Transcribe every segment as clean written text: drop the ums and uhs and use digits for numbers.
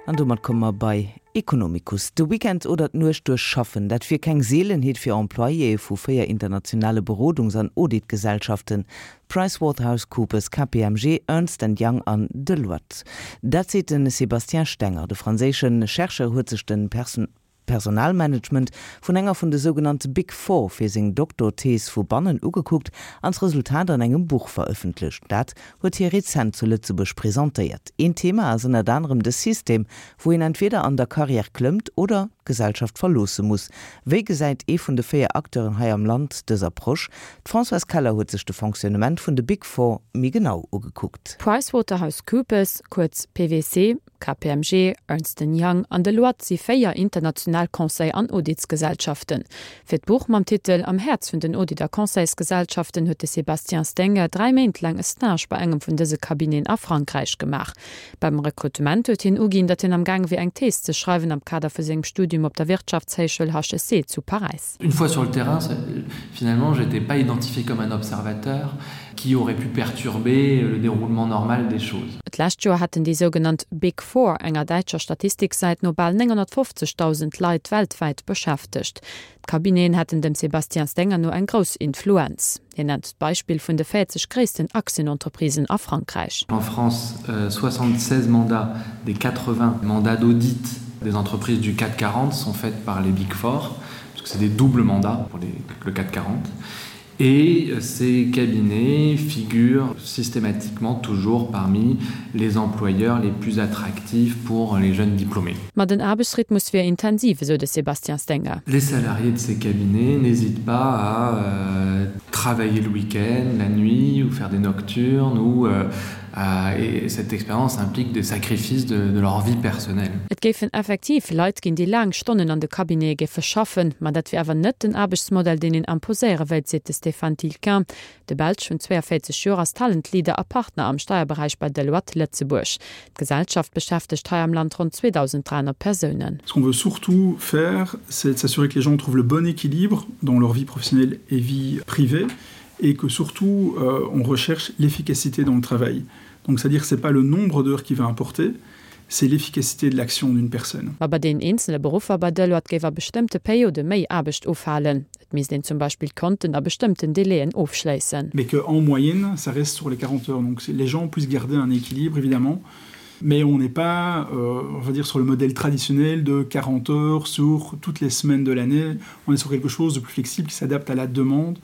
An domat komme mer bei Economicus. De Weekend oder d'Nuecht duerch schaffen, dat wier keng Seelenheet fir Employéë vu 4 internationale Berodungs an Auditgesellschaften, PricewaterhouseCoopers, KPMG, Ernst and Young an Deloitte. Dat seet de Sébastien Stenger. De franséische Chercheur huet sech de Personalmanagement vun enger vun de sougenannte Big Four fir seng Doktorthees vu bannen ugekuckt an d'Resultat an engem Buch verëffentlecht. Dat huet hie rezent zu Lëtzebuerg presentéiert. Een Thema ass ënnert anerem de System, wou een entweder an der Karriär klëmmt oder d'Gesellschaft verloosse muss. Wéi gesäit ee vun de 4 Acteuren hei am Land dës Approche? D'Françoise Keller huet sech de Fonctionnement vun de Big Four méi genau ugekuckt. PricewaterhouseCoopers, kuerz PwC, KPMG, Ernst and Young an Deloitte si 4 international Conseil an Auditsgesellschaften. Fir d'Buch mam Titel Am Häerz vun den Audit a Conseilsgesellschaften huet de Sébastien Stenger 3 Méint laang e Stage bei engem vun dëse Cabineten a Frankräich gemaach. Beim Rekrutement huet hien uginn, datt hien am Gaang wier eng Thees ze schreiwen am Kader vu sengem Studium op der Wirtschaftshéichschoul HEC zu Paräis. Une fois sur le terrain, finalement, j'étais pas identifié comme un observateur qui aurait pu perturber le déroulement normal des choses. D'lescht Joer hätten déi sougenannt Big Four enger däitscher Statistiksäit no bal 950.000 Leit weltwäit beschäftegt. D'Cabineten hätten dem Sébastien Stenger no eng grouss Influenz. Hien nennt d'Beispill vun de 40 gréissten Aktienentreprisen a Frankräich. En France, 76 mandats des 80 mandats d'audit des entreprises du CAC 40 sont faites par les Big Four, parce que c'est des doubles mandats pour les, le CAC 40. Et ces cabinets figurent systématiquement toujours parmi les employeurs les plus attractifs pour les jeunes diplômés. Ma den Aarbechtsrhythmus wier intensiv, esou de Sébastien Stenger. Les salariés de ces cabinets n'hésitent pas à euh, travailler le week-end, la nuit ou faire des nocturnes ou euh, à, et cette expérience implique des sacrifices de, de leur vie personnelle. Et géifen effektiv Leit ginn, déi laang Stonnen an de Cabinete géife schaffen, ma dat wier awer net den Aarbechtsmodell, deen een imposéiere wéilt, seet de Stéphane Tilquin. De Belsch vun 42 Joer ass Talent Leader a Partner am Steierberäich bei Deloitte Lëtzebuerg. D'Gesellschaft beschäftegt hei am Land ronn 2.300 Persounen. Ce qu'on veut surtout faire, c'est de s'assurer que les gens trouvent le bon équilibre dans leur vie professionnelle et vie privée et que surtout euh, on recherche l'efficacité dans le travail. Donc c'est-à-dire c'est pas le nombre d'heures qui va importer, c'est l'efficacité de l'action d'une personne. Ma bei deenen eenzele Beruffer bei Deloitte géif a bestëmmte Periode méi Aarbecht ufalen. Et misst een zum Beispill d'Konten a bestëmmten Délaiën ofschléissen. Mais que en moyenne ça reste sur les 40 heures donc les gens puissent garder un équilibre évidemment mais on n'est pas euh, on va dire sur le modèle traditionnel de 40 heures sur toutes les semaines de l'année on est sur quelque chose de plus flexible qui s'adapte à la demande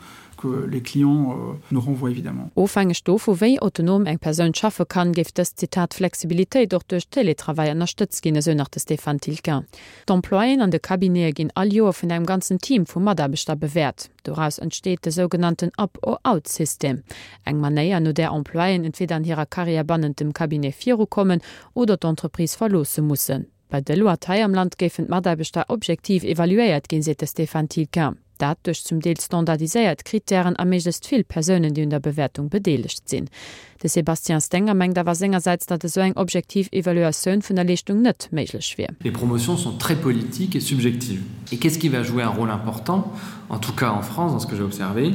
que les clients euh, nous renvoient évidemment. Ofhängeg dovu wéi autonom eng Persoun schaffe kann, géif dës, Zitat, Flexibilitéit och duerch Télétravail ënnerstëtzt ginn, esou nach de Stéphane Tilquin. D'Employéen an de Cabinete ginn all Joer vun engem ganzen Team vu Mataarbechter bewäert. Doraus entsteet de sougenannten Up-or-out-System, eng Manéier, no där Employéen entweder an hirer Karriär bannent dem Cabinet virukommen oder d'Entreprise verloosse mussen. Bei Deloitte hei am Land géifen d'Mataarbechter objektiv evaluéiert ginn, seet de Stéphane Tilquin. Dat duerch zum Deel standardiséiert Krittären a méiglechst vill Persounen, déi un der Bewäertung bedeelegt sinn. De Sébastien Stenger mengt awer sengersäits, datt esou eng objektiv Evaluatioun vun der Leeschtung net méiglech wier. Les promotions sont très politiques et subjectives. Et qu'est-ce qui va jouer un rôle important, en tout cas en France, dans ce que j'ai observé,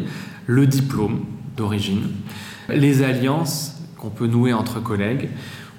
le diplôme d'origine, les alliances qu'on peut nouer entre collègues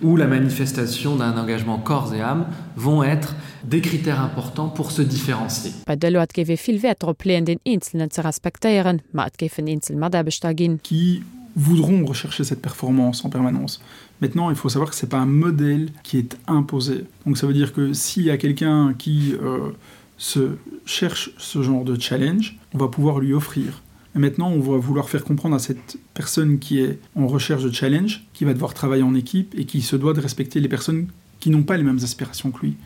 ou la manifestation d'un engagement corps et âme vont être des critères importants pour se différencier. Bei Deloitte géif ee vill Wäert drop leeën, deen Eenzelnen ze respektéieren, ma et géifen eenzel Mataarbechter ginn. Qui voudront rechercher cette performance en permanence. Maintenant, il faut savoir que c'est pas un modèle qui est imposé. Donc ça veut dire que s'il y a quelqu'un qui euh, se cherche ce genre de challenge, on va pouvoir lui offrir. Et maintenant, on va vouloir faire comprendre à cette personne qui est en recherche de challenge, qui va devoir travailler en équipe et qui se doit de respecter les personnes qui n'ont pas les mêmes aspirations que lui.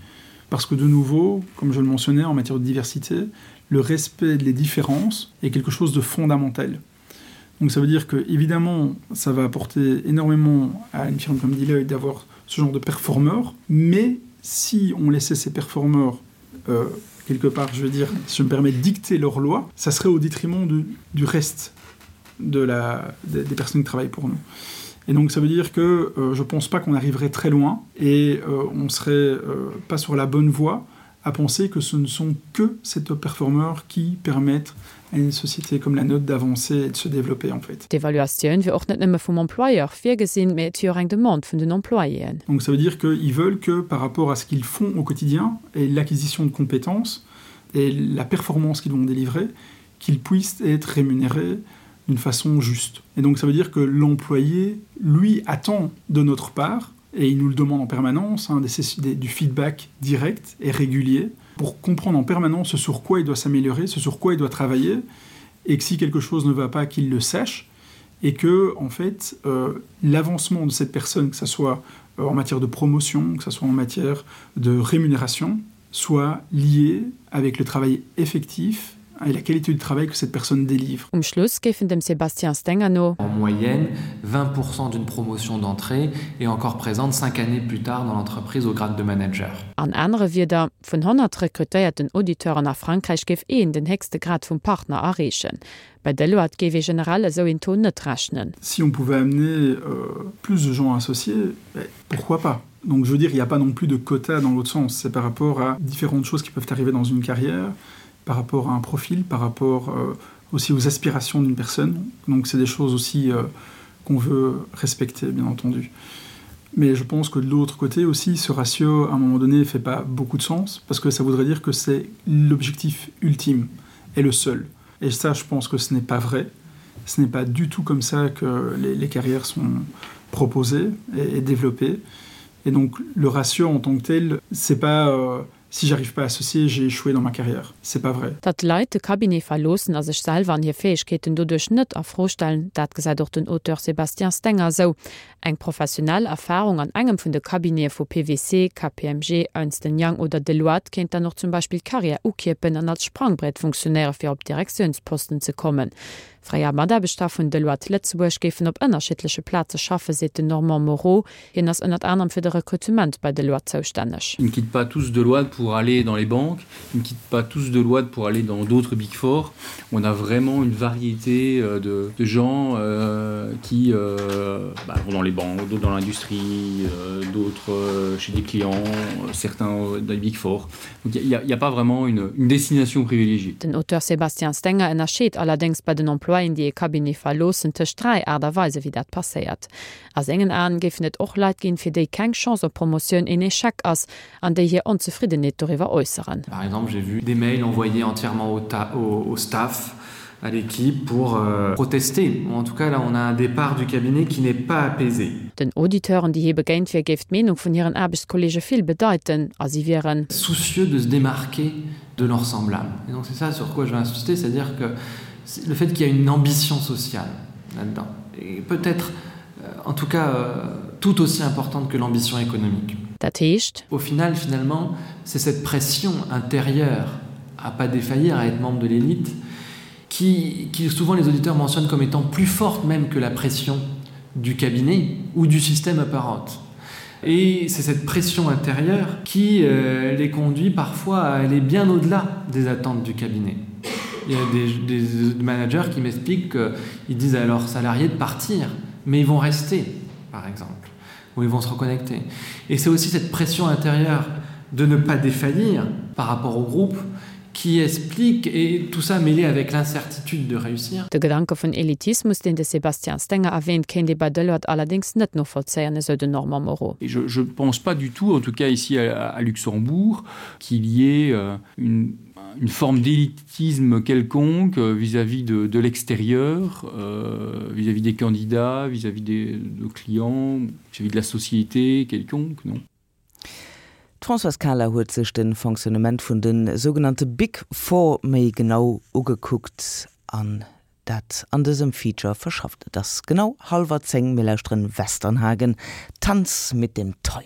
Parce que de nouveau, comme je le mentionnais en matière de diversité, le respect des différences est quelque chose de fondamental. Donc ça veut dire que évidemment ça va apporter énormément à une firme comme Deloitte d'avoir ce genre de performeur, mais si on laissait ces performeurs euh, quelque part je veux dire si je me permets de dicter leur loi, ça serait au détriment du, du reste de la, des, des personnes qui travaillent pour nous. Et donc ça veut dire que euh, je pense pas qu'on arriverait très loin et euh, on serait euh, pas sur la bonne voie. à penser que ce ne sont que ces top performeurs qui permettent à une société comme la nôtre d'avancer et de se développer en fait. D'Evaluatioun wier och net nëmme vum Employeur virgesinn, mee et wier och eng Demande vun den Employéen. Donc ça veut dire qu'ils veulent que par rapport à ce qu'ils font au quotidien et l'acquisition de compétences et la performance qu'ils vont délivrer, qu'ils puissent être rémunérés d'une façon juste. Et donc ça veut dire que l'employé, lui, attend de notre part, et il nous le demande en permanence, hein, des, des, du feedback direct et régulier, pour comprendre en permanence ce sur quoi il doit s'améliorer, ce sur quoi il doit travailler, et que si quelque chose ne va pas, qu'il le sache, et que en fait euh, l'avancement de cette personne, que ce soit euh, en matière de promotion, que ce soit en matière de rémunération, soit lié avec le travail effectif et la qualité du travail que cette personne délivre. Um Schluss géifen dem Sébastien Stenger no. En moyenne, 20% d'une promotion d'entrée est encore présente 5 années plus tard dans l'entreprise au grade de manager. An anere Wierder, Vun 100 rekrutéierten Auditeuren a Frankräich géif een den héchste Grad vum Partner erreechen. Bei Deloitte géif ee generell esou een Taux net rechnen. Si on pouvait amener plus de gens associés, pourquoi pas? Donc je veux dire, il n'y a pas non plus de quota dans l'autre sens. C'est par rapport à différentes choses qui peuvent arriver dans une carrière, par rapport à un profil, par rapport euh, aussi aux aspirations d'une personne. Donc c'est des choses aussi euh, qu'on veut respecter, bien entendu. Mais je pense que de l'autre côté aussi, ce ratio, à un moment donné, ne fait pas beaucoup de sens, parce que ça voudrait dire que c'est l'objectif ultime et le seul. Et ça, je pense que ce n'est pas vrai. Ce n'est pas du tout comme ça que les, les carrières sont proposées et, et développées. Et donc le ratio en tant que tel, c'est pas euh, si j'arrive pas à associer, j'ai échoué dans ma carrière. C'est pas vrai. Datt d'Leit de Cabinet verloossen a sech selwer an hir Fäegkeeten doduerch net a Fro stellen, dat gesäit och den Auteur Sébastien Stenger esou. Eng professionell Erfarung an engem vun de Cabinete vu PwC, KPMG, Ernst Young oder Deloitte kéint dann och zum Beispill d'Karriär ukierpen an als Sprangbrett funktionéiere fir op Direktiounsposten ze kommen. Fréier Mataarbechter vun Deloitte Lëtzebuerg géifen op ënnerschiddleche Plaze schaffen, seet den Normand Moreau. Hien ass ënnert anerem fir de Rekrutement bei Deloitte zoustänneg. Ils ne quittent pas tous Deloitte pour aller dans les banques, ils ne quittent pas tous Deloitte pour aller dans d'autres Big Four. On a vraiment une variété euh, de, de gens euh, qui euh, bah, vont dans les banques, d'autres dans l'industrie, euh, d'autres euh, chez des clients, euh, certains dans les Big Four. Donc il n'y a, a pas vraiment une, une destination privilégiée. Den Auteur Sébastien Stenger ënnerscheet allerdéngs bei den Employéen, déi e Cabinet verloossen, tëscht 3 Aart a Weise wéi dat passéiert. A sengen Aen géifen et och Leit ginn, fir déi keng Chance op Promotioun een Echec ass an déi hir Onzefriddenheet doriwwer äusseren. Par exemple, j'ai vu des mails envoyés entièrement au, au, au staff, à l'équipe pour euh, protester. Ou en tout cas, là, on a un départ du cabinet qui n'est pas apaisé. Den Auditeuren, déi hie begéint wier, géif d'Meenung vun hiren Aarbechtskolleege vill bedeiten a si wieren. Soucieux de se démarquer de leurs semblables. Et donc c'est ça sur quoi je vais insister, c'est-à-dire que le fait qu'il y a une ambition sociale là-dedans et peut-être euh, en tout cas euh, tout aussi importante que l'ambition économique. Dat heescht. Au final finalement, c'est cette pression intérieure à pas défaillir, à être membre de l'élite, qui, qui souvent les auditeurs mentionnent comme étant plus forte même que la pression du cabinet ou du système apparente. Et c'est cette pression intérieure qui euh, les conduit parfois à aller bien au-delà des attentes du cabinet. Il y a des, des managers qui m'expliquent qu'ils disent à leurs salariés de partir, mais ils vont rester, par exemple, ou ils vont se reconnecter. Et c'est aussi cette pression intérieure de ne pas défaillir par rapport au groupe qui explique et tout ça mêlé avec l'incertitude de réussir. De Gedanke vun Elitismus, deen de Sébastien Stenger erwähnt, kéint ee bei Deloitte allerdéngs net novollzéien, esou den Normand Moreau. Et je, je pense pas du tout, en tout cas ici à, à Luxembourg, qu'il y ait euh, une, une forme d'élitisme quelconque euh, vis-à-vis -vis de, de l'extérieur, euh, vis-à-vis euh, -vis des candidats, vis-à-vis -vis des de clients, vis-à-vis -vis de la société quelconque, non. D'Françoise Kahler huet sech de Fonctionnement vun de sougenannte Big Four méi genau ugekuckt an dat an dësem Feature verschafft. Et ass genau hallwer 10, mir lauschteren Westernhagen, Tanz mit dem Teufel.